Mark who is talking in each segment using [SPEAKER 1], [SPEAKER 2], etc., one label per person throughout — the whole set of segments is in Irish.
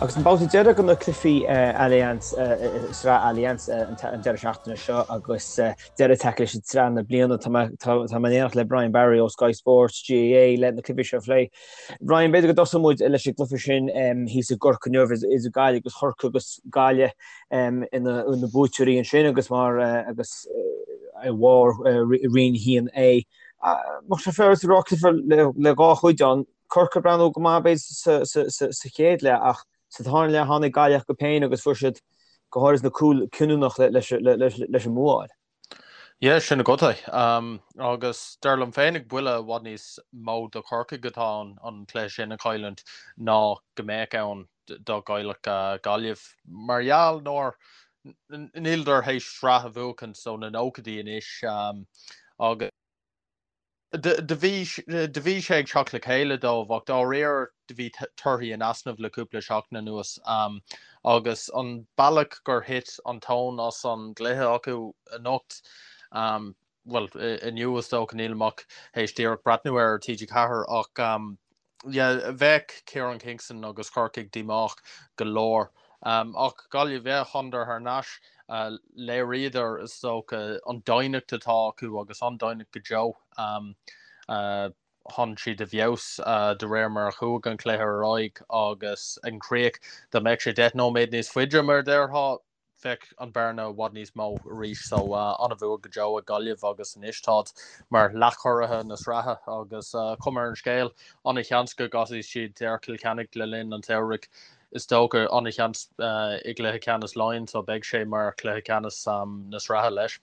[SPEAKER 1] Agus an babhta deiridh de na cluichí Allianz, Sraith Allianz an deireadh seachtaine seo agus deireadh tagtha leis an tsraith na bliana. Tá mé in éineacht le Brian Barry ó Sky Sports GAA le na cluichí seo a phlé. Brian, b'fhéidir go dtosóidh muid leis an gcluiche sin thíos i gCorcaigh inniu idir Gaillimh agus Chorcaigh agus Gaillimh ina na buaiteoirí ansin agus mar agus i bharr Roinn 1A. Bheadh sé féaráilte a rá cluiche le dhá chuid ann. Corcaigh ag breathnú go maith b'fhéidir sa chéad leath ach sa tarna leath tháinig Gaillimh chucu féin agus fuair siad go háirid na cúil cinniúnach leis an mbua a fháil.
[SPEAKER 2] Yeah, sin agat é. Agus dar liom féinig buille i bhfad níos mó do Chorcaigh atá ann an cluiche sin a chailliúint ná go mbeadh ann dá gcaillfeadh Gaillimh. Mar gheall nár níleadar théis sraith a bhuachaint ó na nóchaidí anois agus Do bhí sé ag teacht le chéile dóibh ach dáiríre do bhí torthaí in easnamh le cúpla seachtain anuas agus an bealach gur thit an tóin as an gcluiche acu anocht, bhuel, inniu is dócha, nílim ach théis díreach breathnú air ar TG4 ach yeah, bheadh Kieran Kingston agus Corcaigh díomách go leor. Ach Gaillimh, yeah, thánadar thar n-ais. Léiríodar, is dócha, an doimhneacht atá acu agus an-doimhneacht go deo. Tháinig siad i bhfeabhas de réir mar a chuaigh an cluiche ar aghaidh agus ag an chríoch, dá mbeadh sé 10 nóiméad níos faide, mar a déarfá, bheadh an bearna i bhfad níos mó arís so an-bhua go deo ag Gaillimh agus anois táid mar leathchuraithe na sraithe agus cuma ar an scéal an-sheans go gcasfaidh siad ar Chill Chainnigh le linn an tsamhraidh is dócha an-sheans i gcluiche ceannais Laighean so beidh sé mar chluiche ceannais na sraithe leis.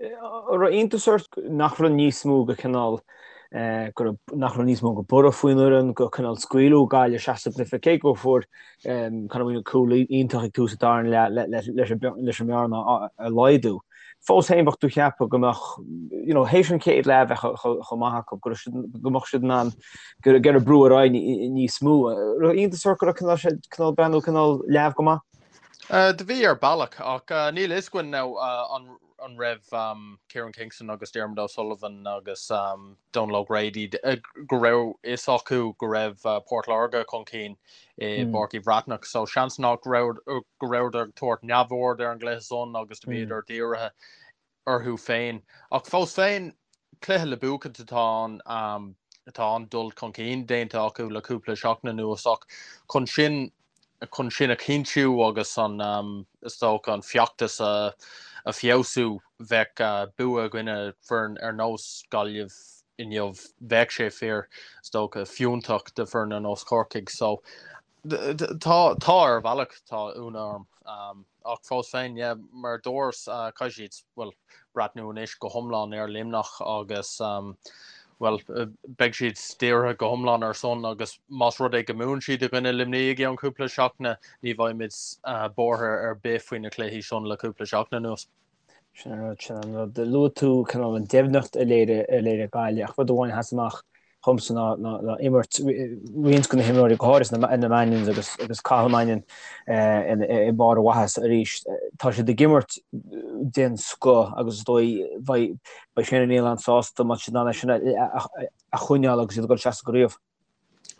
[SPEAKER 1] An raibh iontas ort nach raibh níos mó de chineál go raibh nach raibh níos mó de borradh faoin fhoireann go cineál scaoileadh Gaillimh isteach sa gcluiche cé go fuair Conor Whelan cúl iontach ag tús an darna leath leis an mbearna a laghdú. Fós féin bheadh tú ag ceapadh go mbeadh you know théis an chéad leath bheith chomh maith acu go go mbeadh siad in ann go raibh brú ar aghaidh níos mó. Raibh iontas ort go raibh cineál sé cineál breathnú cineál leamh go maith?
[SPEAKER 2] Do bhí ar bealach ach níl fhios againn now an raibh Kieran Kingston agus Diarmuid O'Sullivan agus Donal O'Grady go raibh fhios acu go raibh Port Láirge chun cinn i bPáirc Uí Bhreathnach so seans nach raibh go rabhadar ag tabhairt neamhaird ar an gcluiche san agus do bhíodar dírithe orthu féin. Ach fós féin, cluiche le buachaint atá ann. Tá an-dul chun cinn déanta acu le cúpla seachtain anuas ach chun sin chun sin a chinntiú agus an is dócha an feachtas a a feabhsú bheadh bua i gcoinne foireann ar nós Gaillimh inniu bheadh sé fíor is dócha fiúntach do foireann ar nós Chorcaigh. So Tá, tá ar bhealach, tá ionadh orm. Ach fós féin, yeah, mar a dúras, caithfidh siad, bhuel, breathnú anois go hiomlán ar Luimneach agus, bhuel, beidh siad dírithe go hiomlán ar san agus más rud é go mbuann siad i gcoinne Luimnigh i gceann cúpla seachtaine, ní bheidh muid buartha ar bith faoi na cluichí san le cúpla seachtain anuas.
[SPEAKER 1] Sin an rud, sin an rud. Luaigh tú cineál an doimhneacht a léirigh, a léirigh Gaillimh ach rud amháin a sheas amach dhomsa ná, ná, ná imirt roinnt de na himreoirí, go háirithe na, na Mannions agus, agus Cathal Mannion i mbarr a mhaitheasa arís. Tá siad ag imirt den scoth agus is dóigh beidh, beidh Shane O'Neill an-sásta má tá siad in ann é sin a, a, a choinneáil agus iad ag dul isteach sa gcraobh.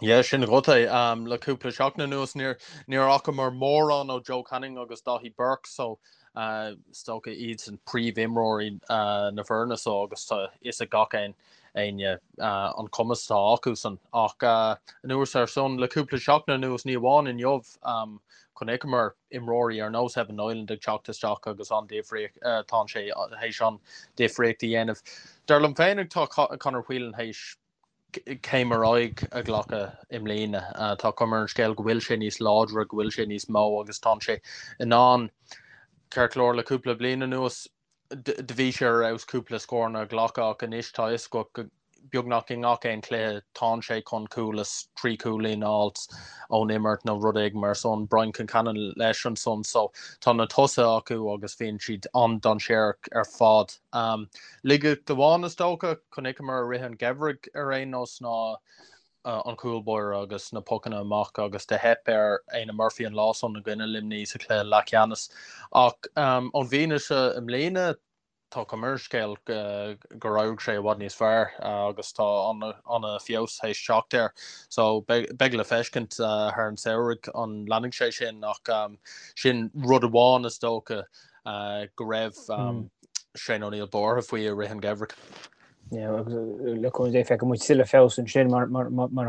[SPEAKER 2] Yeah, sin agat é. Le cúpla seachtain anuas níor níor fhacamar mórán ó Joe Canning agus Daithí Burke so is dócha iadsan príomhimreoirí na foirne so agus tá fhios ag gach aon éinne an cumas atá acusan. Ach anuas ar san le cúpla seachtain anuas ní amháin inniu chonaiceamar imreoirí ar nós Evan Niland ag teacht isteach agus an difríocht tá sé théis an difríocht a dhéanamh. Dar liom féin tá Conor Whelan théis céim ar aghaidh a ghlacadh i mbliana. Tá cuma ar an scéal go bhfuil sé níos láidre, go bhfuil sé níos mó agus tá sé in ann, ceart go leor le cúpla bliain anuas do bhí sé ar fheabhas cúpla scóranna a ghlacadh ach anois tá fhios agat go beagnach i ngach aon chluiche tánn sé chun cúl is 3 chúilín a fháilt ón imirt nó rud éigin mar san. Brian Concannon leis ansan so tá na tosaithe acu agus bíonn siad an-dainséarach ar fad. Laigeacht amháin is dócha, chonaiceamar i rith an gheimhridh ar aon nós ná an cúl báire agus na pocanna amach agus do theip ar Éanna Murphy an lá san i gcoinne Luimnigh sa chluiche leathcheannais. Ach ón bhfianaise i mbliana, Tá cuma ar an scéal gur éirigh sé i bhfad níos fearr agus tá an-fheabhas théis teacht air. So beidh le feiscint thar an samhradh an leanfaidh sé sin ach sin rud amháin is dócha go raibh Shane O'Neill buartha faoi i rith an gheimhridh.
[SPEAKER 1] Yeah, agus le cúnamh Dé feicfidh muid tuilleadh feabhas ansin mar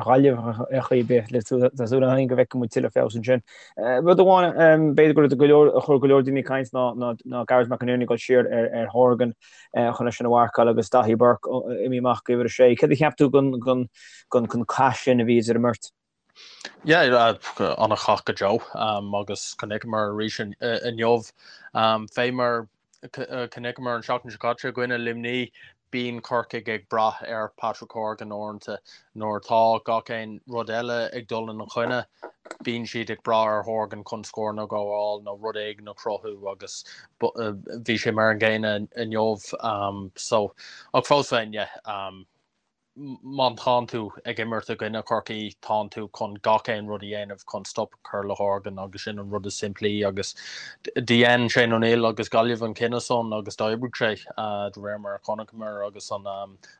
[SPEAKER 1] Ghaillimh ar chaoi ar bith tá súil againn go bhfeicfidh muid tuilleadh feabhas ansin. Rud amháin b'fhéidir go raibh go leor a chuir go leor daoine ag caint ná ná Gearóid McInerney ag dul siar ar ar Horgan chun é sin a mharcáil agus Daithí Burke imithe amach go uimhir a sé. Céard a cheap tú den den den cath sin a bhí idir an mbeirt?
[SPEAKER 2] Yeah, an-chath go deo agus chonaiceamar arís inniu fé mar chonaiceamar an seachtain seo caite i gcoinne Luimní, bíonn Corcaigh ag brath ar Patrick Horgan uaireanta. Nuair atá gach aon rud eile ag dul ina choinne, bíonn siad ag brath ar Horgan chun scóranna a ghabháil nó rud éigin a chruthú agus bhí sé mar an gcéanna inniu. So, ach fós féin, yeah, má tánn tú ag imirt i gcoinne Chorcaí, tánn tú chun gach aon rud a dhéanamh chun stop a chur le Horgan agus sin an rud is simplí agus dhein Shane O'Neill agus Gaillimh an cinneadh san agus d'oibrigh sé de réir mar a chonaiceamar agus an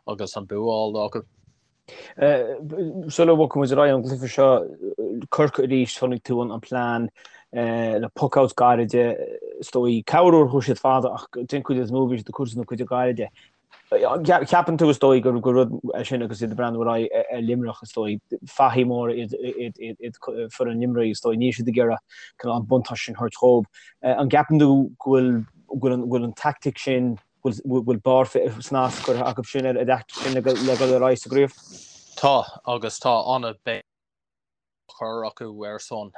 [SPEAKER 2] agus an bua á fháil acu.
[SPEAKER 1] Sula bhogfaidh muid ar aghaidh ón gcluiche seo, Corcaigh arís, chonaic tú an plean le puck-outs gairide, is dóigh, corruair chuaigh siad fada ach den chuid is mó bhí siad ag cur na cuide gairide. Ceapann tú, is dóigh, gur rud é sin agus iad ag breathnú ar aghaidh ar Luimneach, is dóigh, fathaigh móra iad foireann Luimnigh, is dóigh, níl siad ag iarraidh an buntáiste sin a thabhairt dhóibh. An gceapann tú go bhfuil go bhfuil an tactic sin, go bhfuil barr snas curtha acu sin ar an dtactic sin le dul ar aghaidh sa gcraobh?
[SPEAKER 2] Tá, agus tá an-bhéim chur acu air san.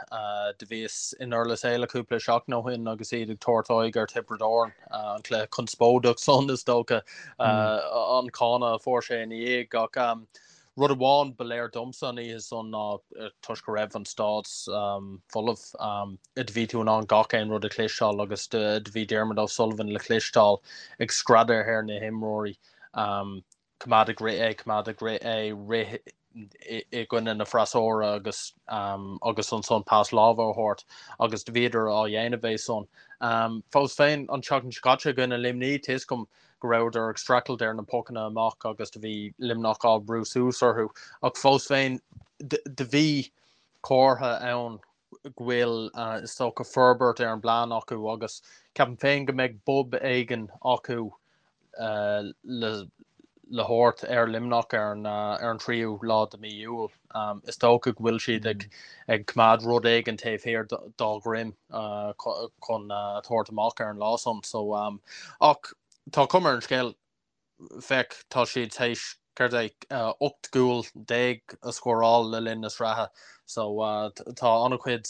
[SPEAKER 2] Do bhíos i nDurlas Éile cúpla seachtain ó shin agus iad ag tabhairt aghaidh ar Thiobraid Árann, an cluiche conspóideach san is dócha, an cáineadh a fuair sé ina dhiaidh. Ach rud amháin ba léir domsa an oíche san ná toisc go raibh an staid folamh, do bhí tú in ann gach aon rud a chloisteáil agus do bhí Diarmuid O'Sullivan le cloisteáil ag screadadh ar na himreoirí. Coimeád ag rith é, coimeád ag rith é, rith i gcoinne na freasúra agus agus ansan pas láimhe a thabhairt agus do bhíodar á dhéanamh é san. Fós féin, an tseachtain seo caite i gcoinne Luimní, tá 'fhios agam go rabhadar ag streachailt ar na pocanna amach agus do bhí Luimneach á brú suas orthu ach fós féin do bhí comhartha ann go bhfuil, is dócha, forbairt ar an bplean acu agus ceapaim féin go mbeidh bob éigin acu le le thabhairt ar Luimneach ar an ar an tríú lá de mí Iúil. Is dócha go bhfuil siad ag ag coimeád rud éigin taobh thiar dá dhroim chun tabhairt amach ar an lá san. So, ach tá cuma ar an scéal Féach, tá siad théis, céard é, 18 gcúl a scóráil le linn na sraithe so tá an-chuid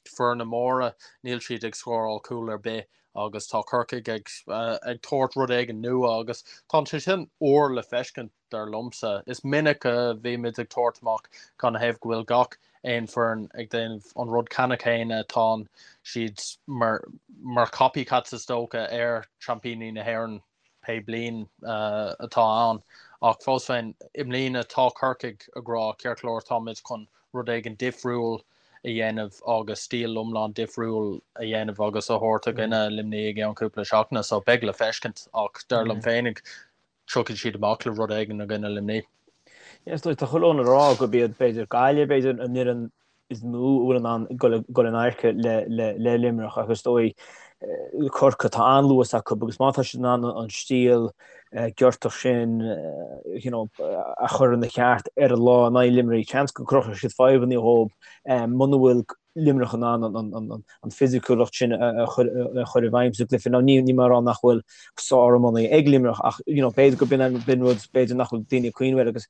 [SPEAKER 2] foirne móra, níl siad ag scóráil cúl ar bith agus tá Corcaigh ag ag tabhairt rud éigin nua agus tá sé sin úr le feiscint dar liomsa. Is minic a bhímid ag tabhairt amach canathaobh go bhfuil gach aon foireann ag déanamh an rud ceanna céanna, tá siad mar mar copycats is dócha ar seaimpíní na hÉireann. pé bliain atá ann. Ach fós féin, i mbliana tá Corcaigh ag rá, ceart go leor, táimid chun rud éigin difriúil a dhéanamh agus stíl iomlán difriúil a dhéanamh agus a thabhairt i gcoinne Luimnigh i gceann cúpla seachtaine. So beidh le feiscint ach dar liom féinig tiocfaidh siad amach le rud éigin i gcoinne Luimnigh.
[SPEAKER 1] Yes, tá chuile fhonn a rá gurb iad b'fhéidir Gaillimh, b'fhéidir an fhoireann is mó a bhfuil in ann dul in adharca le Luimneach ach is dóigh Corcaigh, tá an-luas acu agus má tá siad in ann an stíl giortach sin you know, a chur ina cheart ar an lá in aghaidh Luimnigh, seans go gcruthóidh siad fadhbanna dhóibh muna bhfuil Luimneach in ann an fisiciúlacht sin a chur i bhfeidhm sa gcluiche. Now níl mé ag rá nach bhfuil sár-iománaí ag Luimneach ach you know, b'fhéidir go b'in rud b'fhéidir nach bhfuil daoine ag cuimhneamh air agus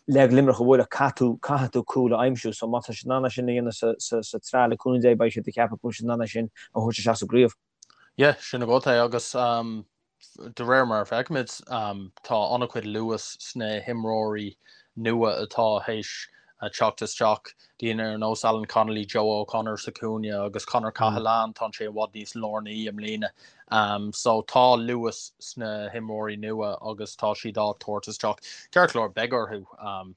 [SPEAKER 1] Le Luimneach a bhualadh, caithfidh tú, caithfidh tú cúl a aimsiú. So má tá siad in ann é sin a dhéanamh sa, sa, sa tsraith le cúnamh Dé beidh siad ag ceapadh go bhfuil siad in ann é sin a thabhairt isteach sa gcraobh.
[SPEAKER 2] Yeah, sin agat é agus um, de réir mar a feicimid um, tá an-chuid luas sna himreoirí nua atá théis teacht isteach, daoine ar nós Alan Connolly, Joe O'Connor sa chúinne agus Conor Cahalane, tá sé i bhfad níos lárnaí i mbliana. So tá luas sna himreoirí nua agus tá siad á tabhairt isteach. Ceart go leor, beidh orthu.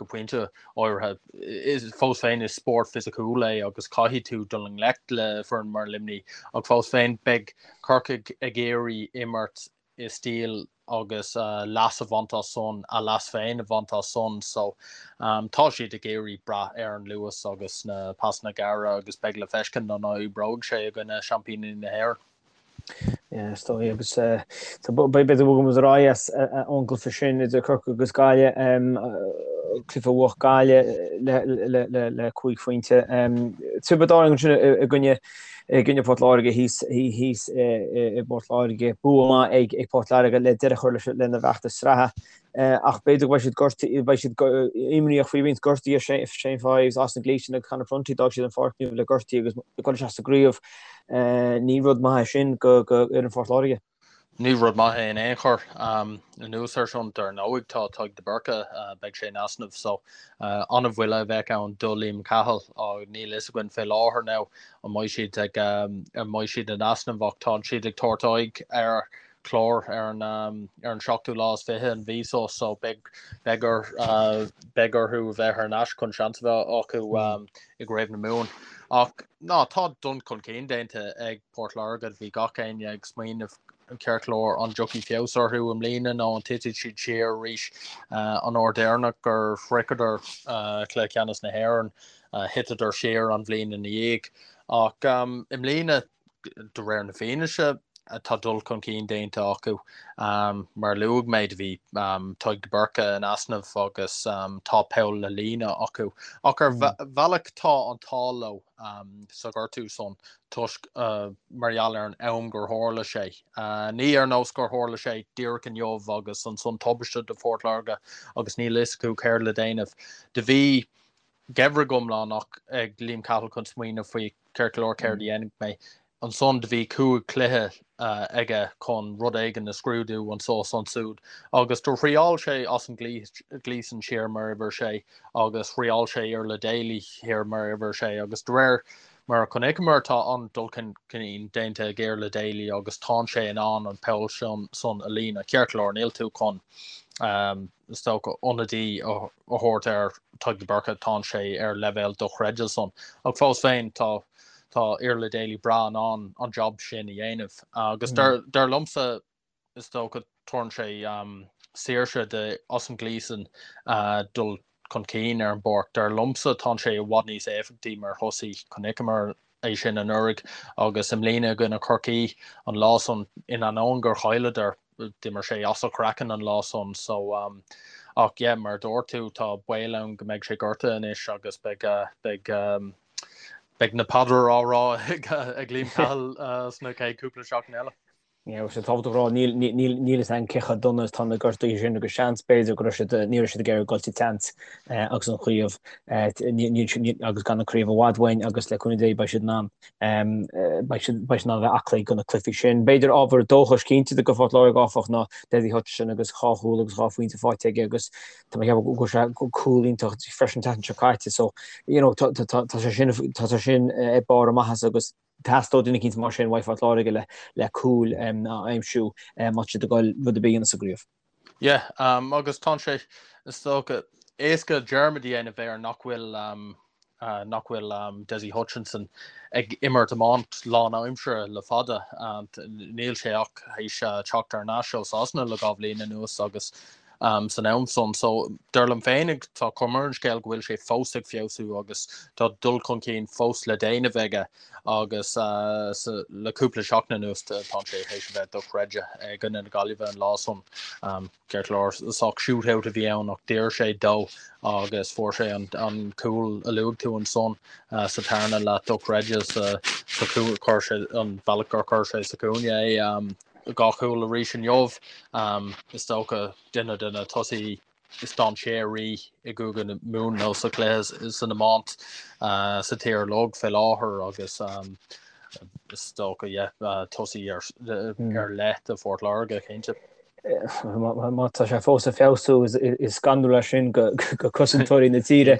[SPEAKER 2] Go pointe áirithe, is fós féin is spórt fisiciúil é agus caithfidh tú dul i ngleic le foireann mar Luimnigh ach fós féin beidh Corcaigh ag iarraidh imirt i stíl agus leas a bhaint as san, a leas féin a bhaint as san. So tá siad ag iarraidh brath ar an luas agus na pasanna gearra agus beidh le feiscint an oibreoidh sé i gcoinne seaimpíní na hÉireann.
[SPEAKER 1] Yeah, is dóigh agus b'fhéidir go bhfogfaidh muid ar aghaidh as ón gcluiche sin idir Corcaigh agus Gaillimh, cluiche a bhuaigh Gaillimh le 5 phointe. Tiobraid Árann ansin i gcoinne i gcoinne Port Láirge thíos thíos i bPort Láirge. Bua maith ag Port Láirge le deireadh a chur leis lena bhfeachtas sraithe. Ach b'fhéidir go mbeidh siad gortaithe, beidh siad imníoch faoi roinnt gortuithe, Shane Fives, Austin Gleeson agus Conor Prunty, d'fhág siad an pháirc inniu le gortuithe agus ag dul isteach sa gcraobh. Ní rud maith é sin do fhoireann Phort Láirge.
[SPEAKER 2] Ní rud maith é in aon chor. Anuas air sin, dar ndóigh, tá Tadhg de Búrca, beidh sé in easnamh so an-bhuille a bheadh ann do Liam Cahill. Níl a fhios againn fé láthair now an mbeidh siad ag an mbeidh siad in easnamh ach tá siad ag tabhairt aghaidh ar Chlár ar an ar an seachtú lá is 20 an mhí so so beidh beidh or beidh orthu a bheith thar n-ais chun seans a bheith acu i gCraobh na Mumhan. Ach ná tá dul chun cinn déanta ag Port Láirge, bhí gach éinne ag smaoineamh ceart go leor an dtiocfaidh feabhas orthu i mbliana nó an titfidh siad siar arís an uair deireanach gur shroicheadar cluiche ceannais na hÉireann thiteadar siar an bhliain ina dhiaidh. Ach i mbliana de réir na fianaise, tá dul chun cinn déanta acu. Mar a luaigh mé, do bhí Tadhg de Búrca in easnamh agus tá poll le líonadh acu. Ach ar bhealach tá an t-ádh leo sa ghortú san toisc mar gheall ar an am gur tharla sé. Ní ar nós gur tharla sé díreach inniu agus ansan tubaiste do Phort Láirge agus níl a fhios acu céard le déanamh. Do bhí geimhreadh iomlán ag Liam Cahill chun smaoineamh faoi ceart go leor céard a dhéanfaidh mé. Ansan do bhí 5 chluiche aige chun rud éigin a scrúdú anso is ansúd agus do thriáil sé Austin Gleeson siar mar uimhir sé agus thriáil sé Iarla Daly thiar mar uimhir sé agus de réir mar a chonaiceamar tá an-dul chun cinn déanta ag Iarla Daly agus tánn sé in ann an poll san a líonadh. Ceart go leor níl tú chun is dócha, ionadaí a thabhairt ar Tadhg de Búrca, tánn sé ar leibhéal dochreidte san. Ach fós féin, tá tá Iarla Daly breá in ann an job sin a dhéanamh. Agus dar dar liomsa, is dócha, tabharann sé saoirse do Austin Gleeson dul chun cinn ar an bpáirc. Dar liomsa, tánn sé i bhfad níos éifeachtaí mar thosaí. Chonaiceamar é sin anuraidh agus i mbliana i gcoinne Chorcaí an lá san, in ainneoin gur chailleadar, d'imir sé as a chraiceann an lá san so um, ach yeah, mar a dúirt tú tá baol ann go mbeidh sé gortaithe anois agus beidh uh, beidh um, beidh na paidreacha á rá ag, ag Liam Cahill uh, sna chéad cúpla seachtain eile.
[SPEAKER 1] Yeah, sé tábhachtach a rá níl níl níl fhios againn cé chomh dona is atá na gortuithe sin agus seans b'fhéidir go raibh siad ní raibh siad ag iarraidh dul sa tseans agus an chraobh agus gan an craobh i bhfad uainn agus le cúnamh Dé beidh siad in ann beidh siad beidh siad in ann a bheith aclaí do na cluichí sin. B'fhéidir ábhar dóchais cinnte do Phort Láirge áfach ná Dessie Hutchinson agus 2 chúl agus 2 phointe faighte aige agus tá mé ag ceapadh go bhfuil sé cúl iontach freisin an tseachtain seo caite so you know tá tá tá sé sin tá sé sin ag barr a maitheasa agus Theastódh duine eicínt mar sin uaidh Phort Láirge le le cúil a aimsiú má tá siad ag dul rud ar bith a dhéanamh sa gcraobh.
[SPEAKER 2] Yeah, agus tá sé, is dócha, éasca dearmad a dhéanamh air nach bhfuil nach bhfuil Dessie Hutchinson ag imirt iomáint lánaimseartha le fada. Níl sé ach théis teacht thar n-ais ó Sasana le 2 bhliain anuas agus san am san. So, dar liom féinig, tá cuma ar an scéal go bhfuil sé fós ag feabhsú agus tá dul chun cinn fós le déanamh aige agus le cúpla seachtain anuas tá sé théis a bheith dochreidte i gcoinne na Gaillimhe an lá san. Ceart go leor, sách shootout a bhí ann ach d'iarr sé dó agus fuair sé an cúl a luaigh tú ansan sa tarna leath dochreidte sa chuir sé an bealach gur chuir sé sa chúinne é. 2 chúl arís inniu. Is dócha duine de na tosaithe is dainséaraí i gCúige Mumhan nó sa chluiche san iomáint sa tír uilig fé láthair agus is dócha yeah tosaí ar leith do Phort Láirge cinnte.
[SPEAKER 1] Má tá sé fós ag feabhsú is scanrúil é sin go cosantóirí na tíre.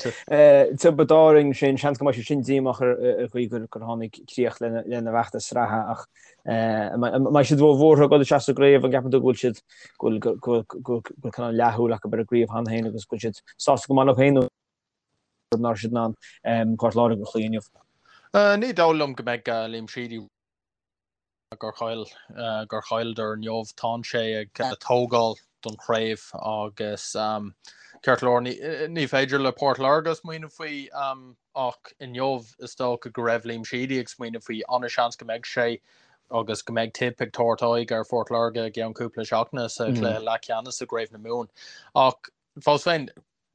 [SPEAKER 1] Tiobraid Árann sin, seans go mbeidh siad sin díomách ar an gcaoi gur tháinig críoch lena bhfeachtas sraithe ach an mbeidh siad róbhuartha ag dul isteach sa gcraobh, an gceapann tú go bhfuil siad go bhfuil cineál leathshúil acu ar an gcraobh cheana féin agus go bhfuil siad sásta go maith leo féin nach raibh siad in ann Port Láirge a chloí inniu?
[SPEAKER 2] Ní dóigh liom go mbeidh Liam Sheedy gur chaill gur chailleadar inniu. Tánn sé ag tógáil don chraobh agus ceart go leor ní féidir le Port Láirge smaoineamh faoi ach inniu is dócha go raibh Liam Sheedy ag smaoineamh faoi. An-seans go mbeidh sé agus go mbeidh Tip ag tabhairt aghaidh ar Phort Láirge i gceann cúpla seachtaine sa chluiche leathcheannais i gCraobh na Mumhan. Ach fós féin,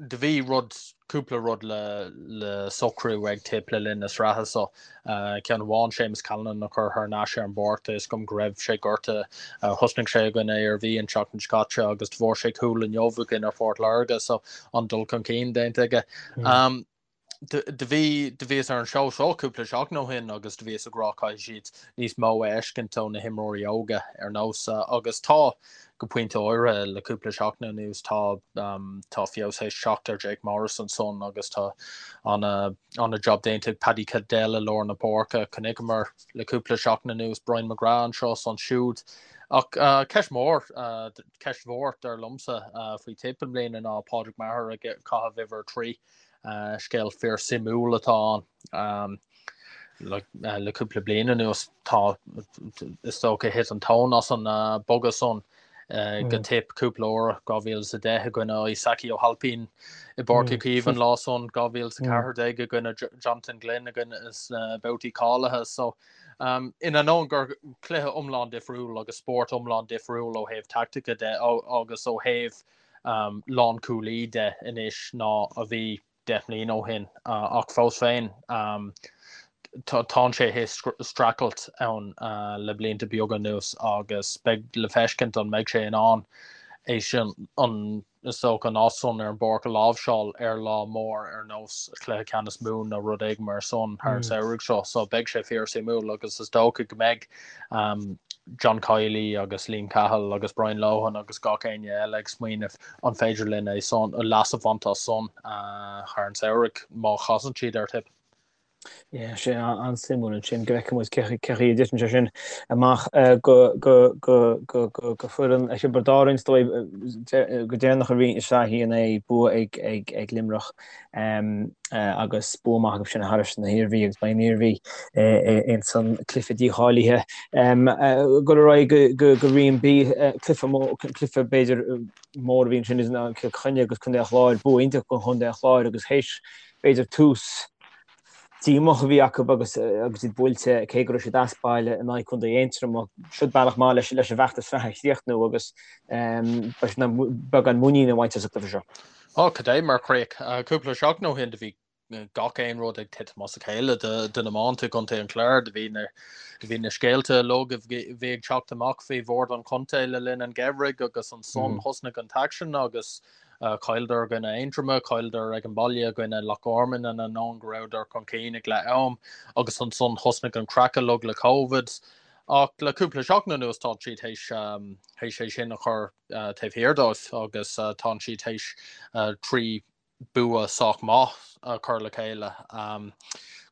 [SPEAKER 2] do bhí rud, cúpla rud le le socrú ag Tip le linn na sraithe so. Ceann amháin, Séamus Callanan a chur thar n-ais ar an bpáirc, tá fhios agam go raibh sé gortaithe, thosnaigh sé i gcoinne Iarmhí an tseachtain seo caite agus do fuair sé cúl inniu i gcoinne Phort Láirge so an-dul chun cinn déanta aige. Do bhí, do bhíos ar an seó seo cúpla seachtain ó shin agus do bhíos ag rá caithfidh siad níos mó a fheiscint ó na himreoirí óga ar nós agus tá, go pointe áirithe, le cúpla seachtain anuas tá, tá feabhas théis teacht ar Jake Morris ansan agus tá ana-job déanta ag Paddy Cadell i lár na páirce. Chonaiceamar le cúpla seachtain anuas Brian McGrath anseo is ansiúd ach ceist mhór, ceist mhór dar liomsa faoi Tip i mbliana ná Pádraig Maher ag caitheamh uimhir 3. Scéal fíor suimiúil atá ann. Le cúpla bliain anuas tá, is dócha, thit an tóin as an bogadh san go Tip cúpla uair, 2010 i gcoinne Isaki Ó hAilpín i bPáirc Uí Chaoimh an lá san, 2014 i gcoinne Jonathan Glynn i gcoinne sna babhtaí cáilithe. So, in ainneoin gur cluiche iomlán difriúil agus spórt iomlán difriúil ó thaobh taictice de agus ó thaobh lánchúlaí de anois ná a bhí 10 mbliana ó shin ach fós féin tánn sé théis streachailt ann le blianta beaga anuas agus beidh le feiscint an mbeidh sé in ann é sin an is dócha an áit san ar an bpáirc a láimhseáil ar lá mór ar nós Cluiche Ceannais Mumhan nó rud éigin mar san thar an samhradh seo so beidh sé fíor suimiúil agus is dócha go mbeidh John Kiely agus Liam Cahill agus Brian Lohan agus gach éinne eile ag smaoineamh an féidir linn é san, leas a bhaint as san thar an samhradh má chasann siad ar Tip.
[SPEAKER 1] Yeah, sé an-suimiúil ansin go bhfeicfidh muid cé chaoi a dtiteann sé sin amach go go go go go go foireann Thiobraid Árann is dóigh go deireanach a bhí i Sraith 1A bua ag ag ag Luimneach. agus bua maith acu sin thairis na hIarmhí agus beidh an Iarmhí ins an cluiche dícháilithe. Dul ar aghaidh go go Roinn B, cluiche cluiche b'fhéidir mór a bhí ansin idir Cill Chainnigh agus Contae an Chláir, bua iontach do Chontae an Chláir agus théis b'fhéidir tús díomách a bhí acu agus agus iad buailte cé go raibh siad as baile in aghaidh Contae Aontroma. Siod bealach maith leis leis an bhfeachtas sraithe a chríochnú agus beidh siad beagán muiníne a bhaint as an gcluiche seo.
[SPEAKER 2] Ó, cad é mar chríoch. Cúpla seachtain ó shin do bhí gach aon rud ag titim as a chéile do na iománaithe i gContae an Chláir. Do bhí na do bhí na scéalta uilig a bhí ag teacht amach faoi bhord an chontae le linn an gheimhridh agus ansan thosnaigh an t-aicsean agus chailleadar i gcoinne Aontroma, chailleadar ag an baile i gcoinne Loch Garman in ainneoin go rabhadar chun cinn ag leath am agus ansan thosnaigh an craic uilig le Covid. Ach le cúpla seachtain anuas tá siad théis théis é sin a chur taobh thiar dóibh agus tánn siad théis 3 bua sách maith a chur le chéile.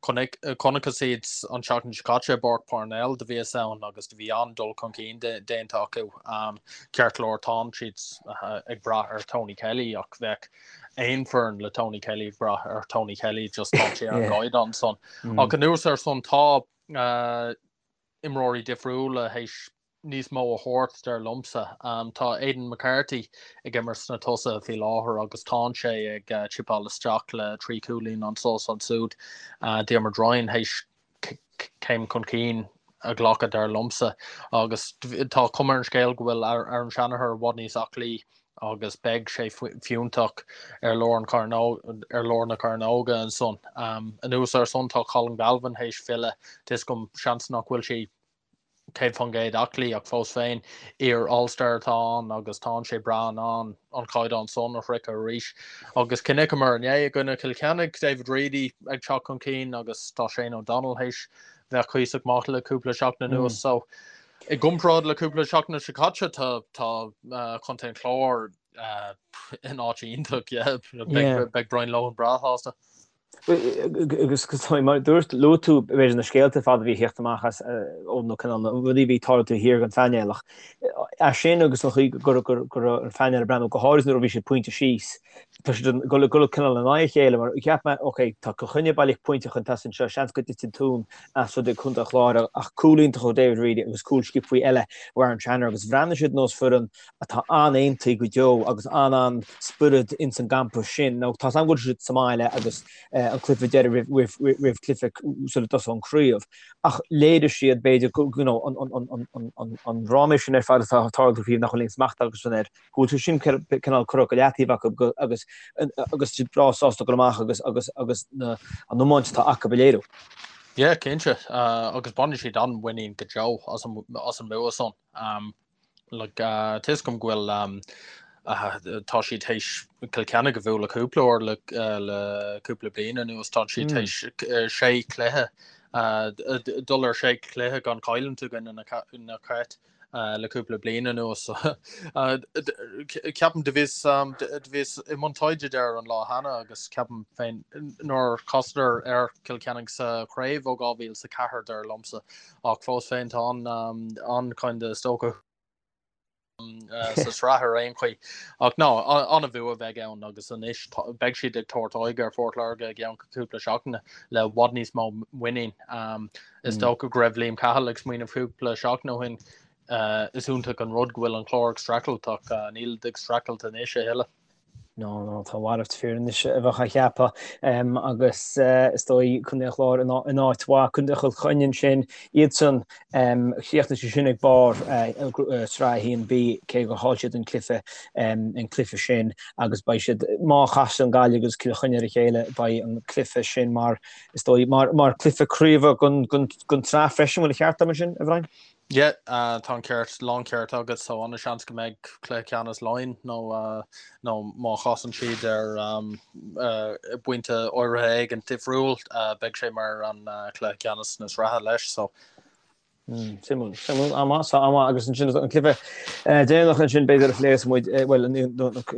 [SPEAKER 2] Chonaiceas iad an tseachtain seo caite i bPáirc Parnell, do bhíos ann agus do bhí an-dul chun cinn déanta acu. Ceart go leor tánn siad ag brath ar Tony Kelly ach bheadh aon foireann le Tony Kelly ag brath ar Tony Kelly just tá sé ar an gcaighdeán san. Ach anuas ar san tá imreoirí difriúla théis níos mó a thabhairt, dar liomsa. Tá Aidan McCarthy ag imirt sna tosaithe faoi láthair agus tánn sé ag chipeáil isteach le 3 chúilín anso is ansúd. Diarmuid Ryan théis céim chun cinn a ghlacadh, dar liomsa, agus tá cuma ar an scéal go bhfuil Aaron Shanagher i bhfad níos aclaí agus beidh sé fiúntach ar lár an ar lár na cearnóga ansan. Anuas ar san tá Colin Galvin théis filleadh, tá fhios agam seans nach bhfuil sé 100% aclaí ach fós féin, iar All Star atá ann agus tánn sé breá in ann an caighdeán san a shroicheadh arís. Agus chonaiceamar inné i gcoinne Chill Chainnigh, David Reidy ag teacht chun cinn agus tá Shane O'Donnell théis bheith cuíosach maith le cúpla seachtain anuas so. I gcomparáid le cúpla seachtain seo caite, tá tá Contae an Chláir in áit iontach, yeah. Beidh Brian Lohan breá sásta.
[SPEAKER 1] Agus mar dúirt, luaigh tú b'fhéidir na scéalta ar fad a bhí ag theacht amach as ó na cineál na rudaí a bhí ag tarlú taobh thiar den phainéal ach é sin agus an chaoi go raibh an phainéal ag breathnú go háirithe nuair a bhí siad pointe síos, tá siad ag dul cineál in aghaidh a chéile mar cheap mé ok tá Cill Chainnigh baileach pointe chun tosaigh anseo, seans go dtitfidh an tóin as rud ag Contae an Chláir ach cúl iontach ó David Reidy agus cúl sciobtha eile ó Aaron Tranter agus bhreathnaigh siad nós foireann atá an-aontaithe go deo agus an-an-spiorad ins an gcampa sin. Now tá 's agam go bhfuil siad sa mbaile agus an cluiche deiridh roimh roimh cluiche sula dtosóidh an craobh ach léirigh siad b'fhéidir go you know an an an an an an ráiméis sin ar fad atá ag tarlú faoi nach bhfuil aon smacht acusan air go bhfuil sé sin cineál curtha go leataobh acu agus agus siad breá sásta dul amach agus agus agus na an iomáint atá acu a léiriú.
[SPEAKER 2] Yeah, cinnte, agus bainfidh siad an-mhuinín go deo as an as an mbua san. Like, tá 'fhios agam go bhfuil tá siad théis Cill Chainnigh a bhualadh cúpla uair le le cúpla bliain anuas, tá siad théis sé chluiche dul ar sé chluiche gan cailliúint i gcoinne na Cait le cúpla bliain anuas. Ceapaim do bhíos do bhíos i mbun taighde air an lá cheana agus ceapaim féin nár chasadar ar Cill Chainnigh sa chraobh ó 2004 dar liomsa. Ach fós féin tá an an kind of is dócha sa tsraith ar aon chaoi. Ach no, an-bhua a bheidh ann agus anois beidh siad ag tabhairt aghaidh ar Phort Láirge i gceann cúpla seachtaine le i bhfad níos mó muinín. Is dócha go raibh Liam Cahill ag smaoineamh cúpla seachtain ó shin is iontach an rud go bhfuil an Clár ag streachailt ach níl ag streachailt anois a thuilleadh.
[SPEAKER 1] No, no, tá a mhalairt fíor anois a bheadh á cheapadh agus is dóigh Contae an Chláir in áit mhaith, Contae Chill Chainnigh ansin, iadsan, chríochnaigh siad sin ag barr Sraith 1B cé gur chaill siad an cluiche, an cluiche sin agus beidh siad, má chasann Gaillimh agus Cill Chainnigh ar a chéile, beidh an cluiche sin mar, is dóigh, mar, mar cluiche craoibhe don, don, don tsraith freisin, bhfuil an ceart agam ansin, a Bhriain?
[SPEAKER 2] Yeah, tá an ceart, lán ceart agat, so an-seans go mbeidh cluiche ceannais Laighean nó nó má chasann siad ar bpointe áirithe éigin difriúil, beidh sé mar an cluiche ceannais na sraithe leis, so.
[SPEAKER 1] Suimiúil, suimiúil, an-mhaith, so an-mhaith agus ansin an cluiche deireanach ansin b'fhéidir a phléifidh muid, bhuel an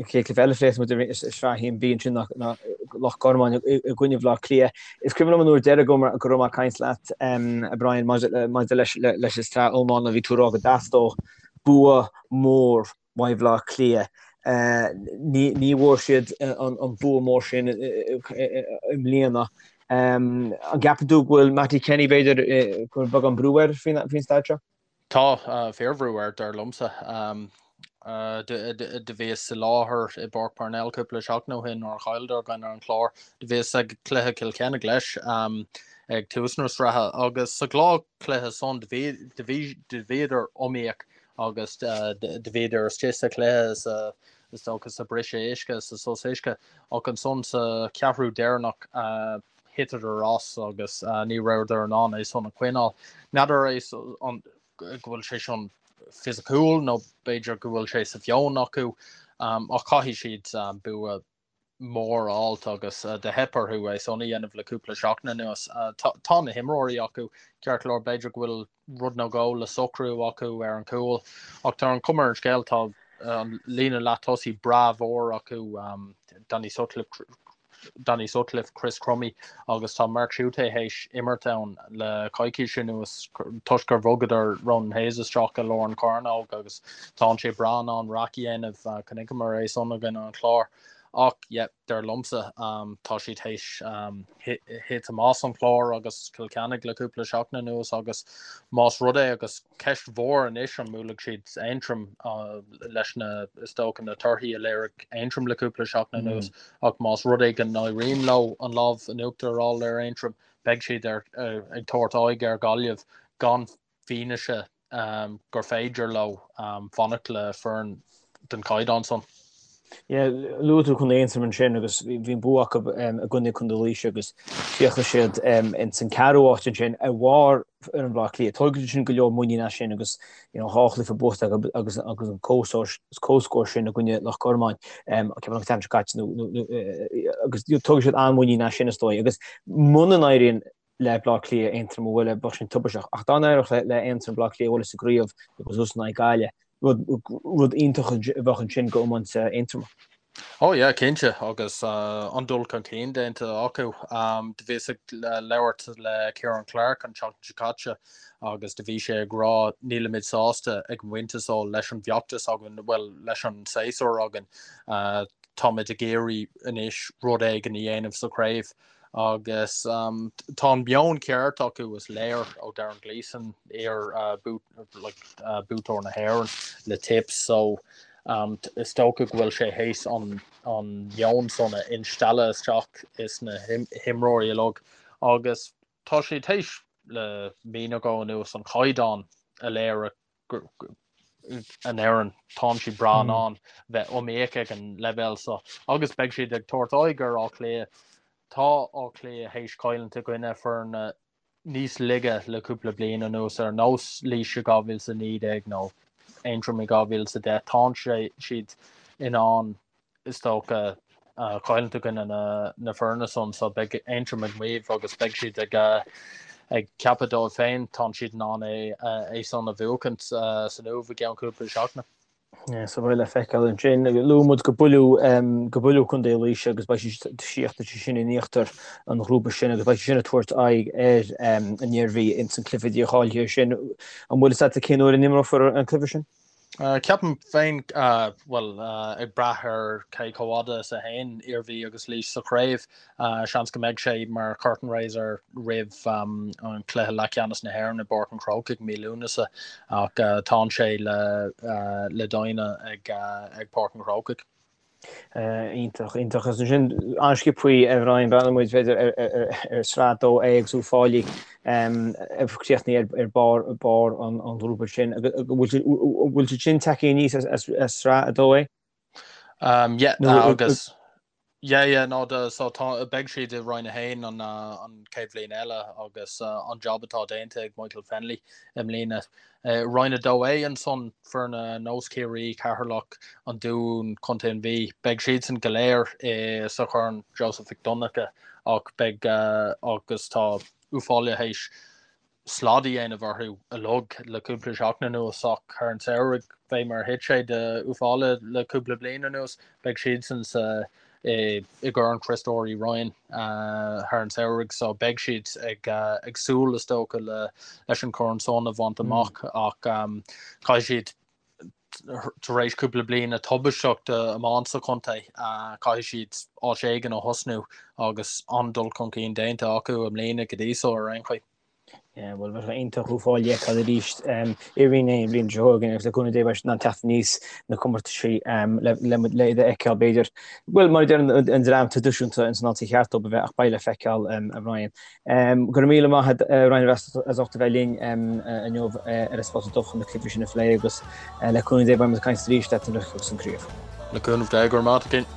[SPEAKER 1] chéad cluiche eile a phléifidh muid i Sraith 1B ansin ná Loch Garman i gcoinne Bhaile Átha Cliath. Is cuimhin liom an uair deiridh go raibh mé ag caint leat, a Brian, maidir leis an tsraith iomána, bhí tú ag rá go dteastódh bua mór uaidh Bhaile Átha Cliath. Ní bhfuair siad an bua mór sin i mbliana. An gceapann tú go bhfuil Mattie Kenny, b'fhéidir, go bhfuil beagán brú air faoin staid seo?
[SPEAKER 2] Tá fíorbhrú air, dar liomsa. Do bhíos i láthair i bPáirc Parnell cúpla seachtain ó shin nuair a chailleadar i gcoinne an Chláir. Do bhíos ag cluiche Chill Chainnigh leis ag tús na sraithe agus sa dhá chluiche san do bhíodar iomaíoch agus do bhíodar istigh sa chluiche sa is dócha sa briseadh uisce, sa sos uisce ach ansan sa cheathrú deireanach thiteadar as agus ní rabhadar in ann é san a choinneáil. N'fheadar é an go bhfuil sé sin fisiciúil nó b'fhéidir go bhfuil sé sa mheon acu ach caithfidh siad bua mór a fháilt agus do theip orthu é san a dhéanamh le cúpla seachtain anuas. Tá na himreoirí acu, ceart go leor b'fhéidir go bhfuil rud nó dhó le socrú acu ar an gcúl ach tá an chuma ar an scéal tá an líne leath tosaigh breá mhór acu, Danny Sutcliffe, Danny Sutcliffe, Chris Crummey agus tá Mark Schutte théis imirt ann le coicís anuas toisc gur bhogadar Ronan Hayes isteach i lár an chearnóg agus tá sé breá in ann raic a dhéanamh, chonaiceamar é san i gcoinne an Chláir. Ach yeah, dar liomsa tá siad théis thitim as an Chlár agus Cill Chainnigh le cúpla seachtain anuas agus más rud é agus ceist mhór anois an mbuailfidh siad Aontroim leis na, is dócha, na torthaí a léirigh Aontroim le cúpla seachtain anuas ach más rud é go n-éiríonn leo an lámh in uachtar a fháil ar Aontroim beidh siad ar, ag tabhairt aghaidh ar Ghaillimh gan fianaise gur féidir leo fanacht le foireann den chaighdeán san.
[SPEAKER 1] Yeah, luaigh tú Contae Aontroim ansin agus bhí an bua acu i gcoinne Contae Laoise agus chríochnaigh siad ins an ceathrú áit ansin ar bharr fhoireann Bhaile Átha Cliath. Tógfaidh sin go leor muinín as sin agus you know, dhá chluiche buaite acu agus agus an comhscór sin i gcoinne Loch Garman ceapaim an tseachtain seo caite nó agus tógfaidh siad an-mhuinín as sin is dóigh agus muna n-éiríonn. Le Bleá Cliath Aontroim a bhualadh, bheadh sin tubaisteach. Ach dá n-éireodh le Aontroim Bleá Cliath a bhualadh sa gcraobh agus iadsan in aghaidh Gaillimh, rud iontach a bheadh ansin go iomáint Aontroma.
[SPEAKER 2] Oh yeah, cinnte, agus an-dul chun cinn déanta acu. Do bhíos ag labhairt le Ciarán Clarke an tseachtain seo caite agus do bhí sé ag rá nílimid sásta ag an bpointe so leis an bhfeachtas againn, bhuel leis an séasúr againn, táimid ag iarraidh anois rud éigin a dhéanamh sa chraobh. Agus tá an meon ceart acu, is léir ó Darren Gleeson, iar-bhuaiteoir na hÉireann le Tips, so is dócha go bhfuil sé théis an meon san a instealladh isteach is na himreoirí uilig agus tá sé théis le mí nó dhó anuas an caighdeán a léirigh an fhoireann, tánn siad breá in ann bheith iomaíoch ag an leibhéal seo agus beidh siad ag tabhairt aghaidh ar Áth Cliath. Tá Áth Cliath théis cailliúint i gcoinne foirne níos laige le cúpla bliain anuas, ar nós Laois i 2019 nó Aontroim i 2010. Tánn siad in ann is dócha, cailliúint i gcoinne na foirne san so beidh Aontroim ag maíomh agus beidh siad ag ag ceapadh dóibh féin tánn siad in ann é é san a bhuachaint san Uaimh i gceann cúpla seachtaine.
[SPEAKER 1] Yeah, so beidh le feiceáil ansin. Luaigh muid go buaileadh go buaileadh Contae Laoise agus beidh siad síochta sin in íochtar an ghrúpa sin agus beidh siad sin ag tabhairt aghaidh ar an Iarmhí ins an cluiche dícháilithe sin. An bhfuil fhios agat cén uair a n-imreofar an cluiche sin?
[SPEAKER 2] Ceapaim féin, bhuel, ag brath ar cé chomh fhada is a théann Iarmhí agus Laois sa chraobh, seans go mbeidh sé mar curtain raiser roimh an cluiche leathcheannais na hÉireann i bPáirc an Chrócaigh mí Lúnasa, ach tánn sé le déanamh ag Páirc an Chrócaigh.
[SPEAKER 1] Iontach, iontach. Agus ansin an-sciobthaí a Bhrian, breathnaíonn muid b'fhéidir ar Sraith 2A agus Uíbh Fhailí ag críochnú ar barr barr an ghrúpa sin. Bhfuil siad sin tagtha aníos as Sraith 2A?
[SPEAKER 2] Yeah, agus Yeah, yeah, no, do, so tá, beidh siad i Roinn 1 an, an chéad bhliain eile agus an job atá déanta ag Michael Fennelly i mbliana. Roinn 2A ansan, foirne ar nós Ciarraí, Ceatharlach, An Dún, Contae an Mhí, beidh siadsan go léir i, sa Chorn Joseph Mhic Donncha ach beidh, agus tá Uíbh Fhailí théis slad a dhéanamh orthu uilig le cúpla seachtain anuas ach thar an samhradh, fé mar a thit sé do Uíbh Fhailí le cúpla bliain anuas, beidh siadsan sa i gCorn Chriostóir Uí Rinn thar an samhradh so beidh siad ag ag súil is dócha le leis an chorn san a bhaint amach ach caithfidh siad tar éis cúpla bliain tubaisteach d'iomáint sa chontae caithfidh siad áit éigin a thosnú agus an-dul chun cinn déanta acu i mbliana go dtí so ar aon chaoi.
[SPEAKER 1] Bhuel, bheadh sé iontach Uíbh Fhailí a fheiceáil arís i Roinn 1 an bhliain seo chugainn agus le cúnamh Dé beidh siad in ann teacht aníos na comórtaisí le iad a fheiceáil b'fhéidir. Bhuel, mar a deir an dream traidisiúnta ins an áit cheart dóibh a bheith ach beidh le feiceáil, a Bhrian. Go raibh míle maith agat, a Bhrian, as ucht a bheith linn inniu ar An Spota Dubh chun na cluichí sin a phlé agus le cúnamh Dé beidh muid ag caint arís leat nuair a thiocfas an craobh.
[SPEAKER 2] Le cúnamh Dé, go raibh maith agat.